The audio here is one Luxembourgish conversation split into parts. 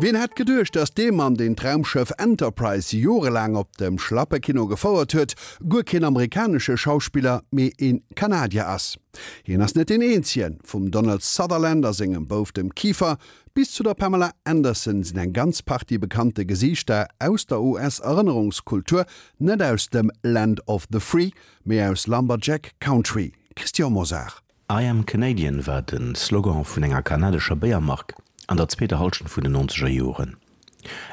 Wien hätt geduecht, datt dee Mann, deen d'Raumschëff Enterprise jorelaang op dem Schlappekino gefouert huet, guer keen amerikanesche Schauspiller, mee ee Kanadier ass? Hien ass net deen eenzegen. Vum Donald Sutherland a sengem Bouf, dem Kiefer, bis zu der Pamela Anderson sinn eng ganz Partie bekannte Gesiichter aus der US-Erënnerungskultur net aus dem Land of the Free, mee aus Lumberjack Country. Christian Mosar. I am Canadian war de Slogan vun enger kanadescher Béiermark an der zweeter Hallschent vun den nonzeger Joren.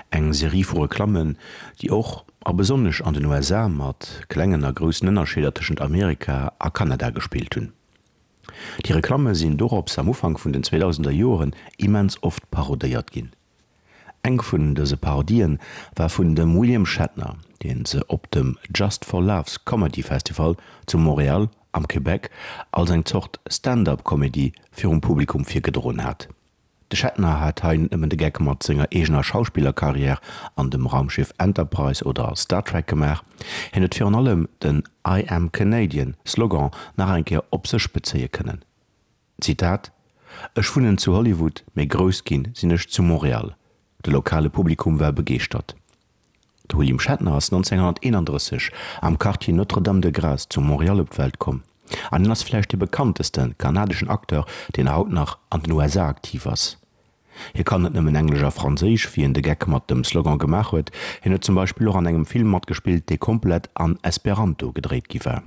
Eng Serie vu Reklammen, déi och a besonnesch an den USA mat klengen a groussen Ënnerscheeder tëschent Amerika a Kanada gespillt hunn. Déi Reklamme sinn dorops am Ufank vun den zweedausender Joren immens oft parodéiert ginn. Eng vun dëse Parodien war vun dem William Shatner, deen se op dem Just for Laughs Comedy Festival zu Montréal am Québec als eng Zort Stand-up-Comedy virum Publikum virgedroen hat. De Shatner hat hei net nëmmen de Geck mat senger eegener Schauspillerkarriär an dem Raumschiff Enterprise oder Star Trek gemaach, hien huet virun allem den I am Canadian Slogan nach eng Kéier op sech bezéie kënnen. Zitat, Ech wunnen zu Hollywood, mee grouss ginn sinn ech zu Montréal. De lokale Publikum war begeeschtert. De William Shatner ass 1931 am Quartier Notre-Dame-de-Grâce zu Montréal op d'Welt komm an hien ass vläicht dee bekannteste kanadeschen Acteur, deen haut nach an den USA aktiv ass. Hie kann net nëmmen Englesch a Franséisch, wéi en de Geck mat dem Slogan gemaach huet, hien huet zum Beispill och an engem Film matgespillt, dee komplett an Esperanto gedréit gi war.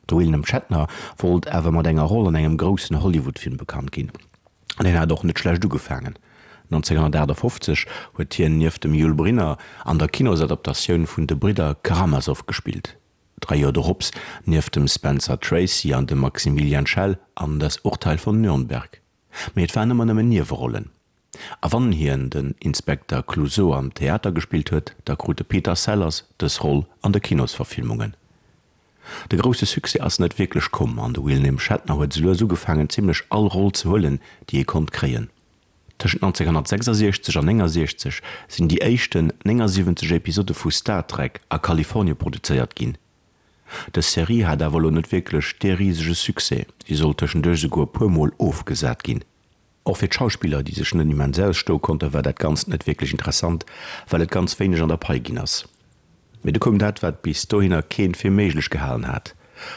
De William Shatner wollt awer mat enger Roll an engem groussen Hollywood-Film bekannt ginn. An hien hat och net schlecht ugefaangen. 1958 huet hien nieft dem Yul Brynner an der Kinosadaptatioun vun De Bridder Karamasow gespillt. Dräi Joer dorops nieft dem Spencer Tracy an dem Maximilian Schell an Das Urteil von Nürnberg. Mee et waren ëmmer nëmmen Niewerollen. A wann hien den Inspekter Clouseau am Theater gespillt huet, da krut de Peter Sellers dës Roll an de Kinosverfilmungen. De grousse Succès ass net wierklech komm an de William Shatner huet esou lues ugefaangen zimmlech all Roll ze huelen, déi hie konnt kréien. Tëschent 1966 an 69 sinn déi éischten 79 Episode vu Star Trek a Kalifornie produzéiert ginn. Dës Serie hat awer elo net wierklech dee risege Succès, si sollt tëschenduerch esouguer e puer Mol ofgesat ginn. Och fir d'Schauspiller, déi sech net immens ausstoe konnten, war dat Ganzt net wierklech interessant, well et ganz wéineg an der Pai ginn ass. Mee du koum dat, wat bis dohinner keen fir méiglech gehalen hat.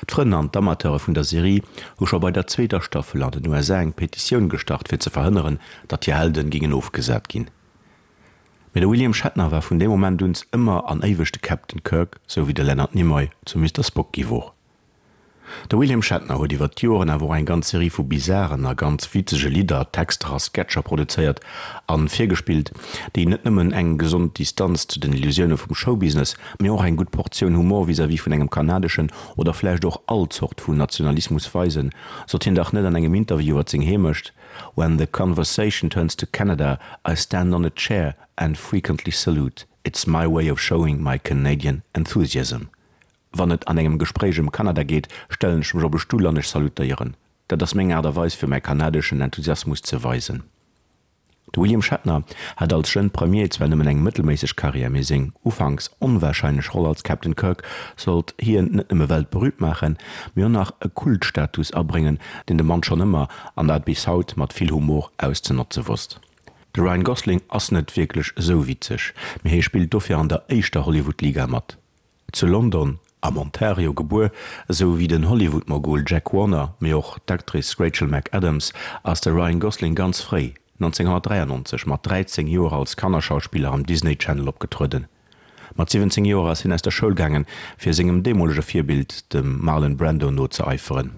D'Frënn an d'Amateure vun der Serie hu scho bei der zweeter Staffel an den USA eng Petitioun gestart, fir ze verhënneren, datt hir Helden gingen ofgesat ginn. Mee de William Shatner war vun deem Moment un ëmmer an éiweg de Captain Kirk, sou wéi de Leonard Nimoy zum Mister Spock gi wor. De William Shatner huet iwwer d'Joren awer och eng ganz Serie vu bizaren a ganz witzege Lidder, Texter a Sketcher produzéiert a virgespillt, déi net nëmmen eng gesond Distanz zu den Illusioune vum Showbusiness, mee och eng gutt Portioun Humor vis-à-vis vun engem kanadeschen oder vläicht och all Zort vun Nationalismus weisen, sot hien dach net an engem Interview iwwer seng Heemecht, When the conversation turns to Canada, I stand on a chair and frequently salute. It's my way of showing my Canadian enthusiasm. Wann et an engem Gespréich ëm Kanada geet, stellen ech mech op e Stull an ech salutéieren. Dat ass meng Aart a Weis fir mäi kanadeschen Enthusiasmus ze weisen. De William Shatner hat als Jeune Premier zwar nëmmen eng mëttelméisseg Karriär, mee seng ufanks onwarscheinlech Roll als Captain Kirk sollt hien net nëmme weltberüümt maachen, mee och nach e Kultstatus abréngen, deen de Mann schonn ëmmer, an dat bis haut, mat vill Humor auszenotze wosst. De Ryan Gosling ass net wierklech esou witzeg, mee hie spillt dofir an der éischter Hollywood-Liga mat. Zu London, am Ontario gebuer, esou wéi den Hollywood-Mogul Jack Warner, mee och d'Actrice Rachel McAdams, ass de Ryan Gosling ganz fréi, 1993, mat 13 Joer als Kannerschauspiller am Disney Channel opgetrueden. Mat 17 Joer ass hien aus der Schoul gaangen, fir sengem deemolege Virbild, dem Marlon Brando, nozeeiferen.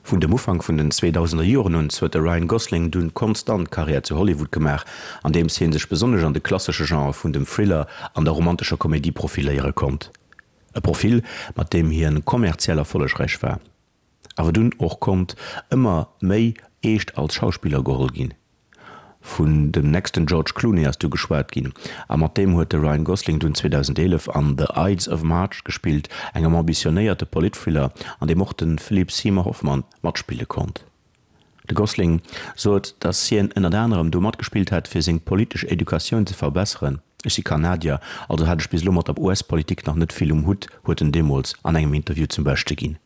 Vun dem Ufank vun den 2000er Joren un huet de Ryan Gosling dunn konstant Karriär zu Hollywood gemaach, andeems hie sech besonnesch an de klassesche Genre vun dem Thriller an der romantescher Komedie profiléiere konnt. E Profil, mat deem hien kommerziell erfollegräich war, awer dunn och konnt ëmmer méi eescht als Schauspiller geholl ginn. Vun dem nächsten George Clooney ass du geschwat ginn, a mat deem huet de Ryan Gosling dunn 2011 an The Ides of March gespillt, engem ambitionéierte Politthriller, an deem och de Philip Seymour Hoffman matspille konnt. De Gosling sot, datt hien ënnert anerem do matgespillt hätt, fir seng politesch Educatioun ze verbesseren. Ech si Kanadier, also hat ech bis elo mat der US-Politik nach net vill um Hutt, huet en deemools an engem Interview zum Beschte ginn.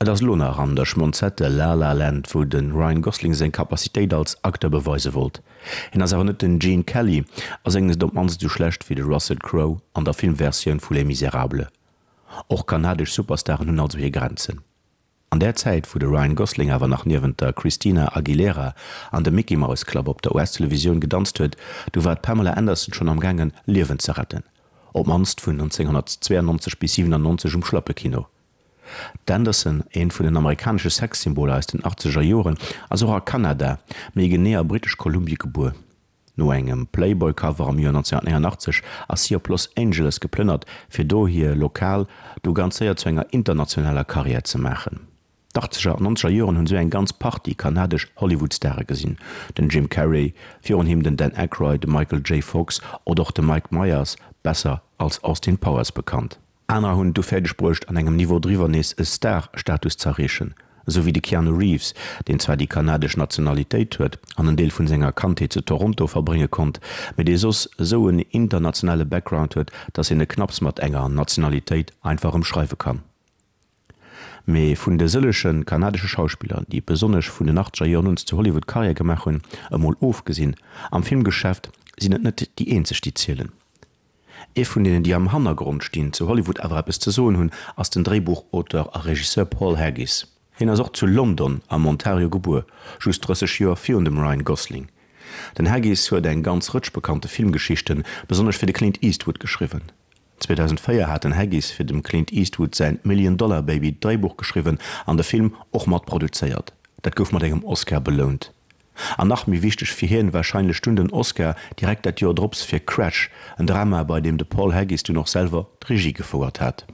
Et ass elo nach an der Schmonzette La La Land, wou de Ryan Gosling seng Capacitéit als Acteur beweise wollt. Hien ass awer net den Gene Kelly a séngt net op d'mannst esou schlecht wéi de Russell Crowe an der Filmversioun vu Les Misérables. Och kanadesch Superstaren hunn also hir Grenzen. An där Zäit, wou de Ryan Gosling awer nach niewent der Christina Aguilera an dem Mickey Mouse Club op der US-Televisioun gedanzt huet, du war d'Pamela Anderson schonn am gaangen, Liewen ze retten. Op d'mannst vun 1992 bis 97 um Schlappekino. D'Anderson, eent vun den amerikanesche Sexsymboler aus den achtzeger Joren, ass och a Kanada, méi genee a Britesch Kolumbie gebuer. No engem Playboy-Cover am Joer 1989 ass si op Los Angeles geplënnert, fir do hir lokal du ganz séier zu enger internationaler Karriär ze maachen. D'Achtzeger an Nonzeger Joren hunn esou eng ganz Partie kanadesch Hollywood-Stare gesinn, den Jim Carrey, virun him den Dan Aykroyd, de Michael J. Fox oder och de Mike Myers, besser als Austin Powers bekannt. Anerer hunn et du fäerdeg bruecht, an engem Niveau driwwer nees e Star-Status z'erreechen, esou wéi de Keanu Reeves, deen zwar déi kanadesch Nationalitéit huet an en Deel vun senger Kandheet zu Toronto verbrénge konnt, mee dee soss esou en internationale Background huet, dass een e knapps mat enger Nationalitéit einfach ëmschreiwe kann. Mee vun de sëllege kanadesche Schauspiller, déi besonnesch vun den achtzeger Joren un zu Hollywood Karriär gemaach hunn, emol ofgesinn, am Filmgeschäft sinn et net déi eenzeg, déi zielen. Ee vun deenen, déi am Hannergrond stinn, zu Hollywood awer eppes ze soen hunn, ass den Dréibuchauteur a Regisseur Paul Haggis. Hien ass och zu London am Ontario gebuer, just 30 Joer virun dem Ryan Gosling. Den Haggis huet eng ganz Rëtsch bekannte Filmgeschichten, besonnesch fir de Clint Eastwood, geschriwwen. 2004 hat den Haggis fir dem Clint Eastwood säin Million Dollar Baby d'Dréibuch geschriwwen an de Film och mat produzéiert. Dat gouf mat engem Oscar belount. An nach méi wichteg fir hien warscheinlech dunn den Oscar direkt dat Joer drops fir Crash, en Drama bei deem de Paul Haggis dunn och selwer d'Regie gefouert hat.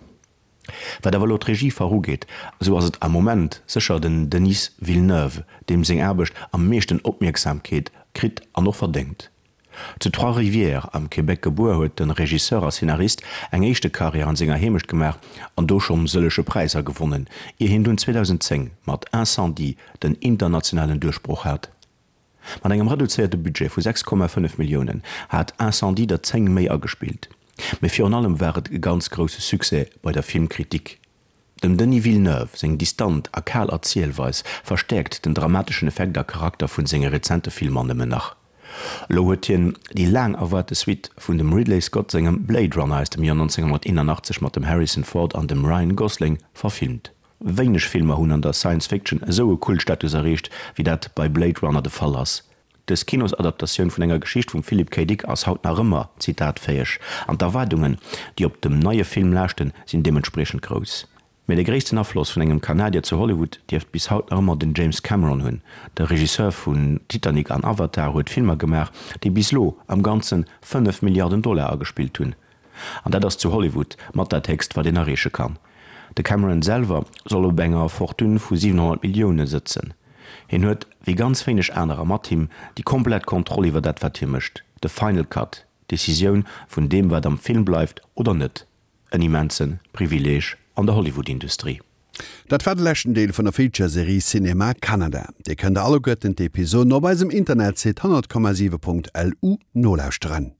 Wat awer elo d'Regiefach ugeet, esou ass et am Moment sécher den Denis Villeneuve, deem seng Aarbecht am meeschten Opmierksamkeet kritt an och verdéngt. Zu Trois-Rivières am Québec gebuer, huet de Regisseur a Szenarist eng éischte Karriär an senger Heemecht gemaach an do schonn sëllege Präisser gewonnen, ier hien dunn 2010 mat Incendies den internationalen Duerchbroch hat. Mat engem reduzéierte Budget vu 6,5 Milliounen hat Incendies der 10 méi agespillt, mee virun allem war et e ganz grousse Succès bei der Filmkritik. Dem Denis Villeneuve seng distant a kal Erzielweis verstäerkt den dramateschen Effekt a Charakter vun senge rezente Filmer nëmmen nach. Elo huet hien déi laang erwaarte Suite vun dem Ridley Scott sengem Blade Runner aus dem Joer 1981 mat dem Harrison Ford an dem Ryan Gosling verfilmt. Wéineg Filmer hunn an der Science Fiction esou e Kultstatus erreecht, wéi dat bei Blade Runner de Fall ass. Dës Kinosadaptatioun vun enger Geschicht vum Philip K. Dick ass haut nach ëmmer zitatfäeg an d'Erwaardungen, déi op dem neie Film laaschten, sinn deementspriechend grouss. Mee de gréissten Afloss vun engem Kanadier zu Hollywood dierft bis haut nach ëmmer den James Cameron hunn. De Regisseur vun Titanic an Avatar huet Filmer gemaach, déi bis lo am Ganze 5 Milliarden Dollar agespillt hunn. An dat ass zu Hollywood mat dat héchst, wat een erreeche kann. De Cameron selwer soll op enger Fortune vu 700 Millioune sëtzen. Hien huet, wéi ganz wéineg anerer mat him, déi komplett Kontroll iwwer dat wat hie mécht, de Final Cut, d'Decisioun vun deem wat am Film bleift oder net. En immense Privileeg an der Hollywood-Industrie. Dat war de leschten Deel vun der Feature-Serie Cinéma Canada. Dir kënnt alleguerten d'Episoden op eisem Internetsite 100,7.lu nolauschteren.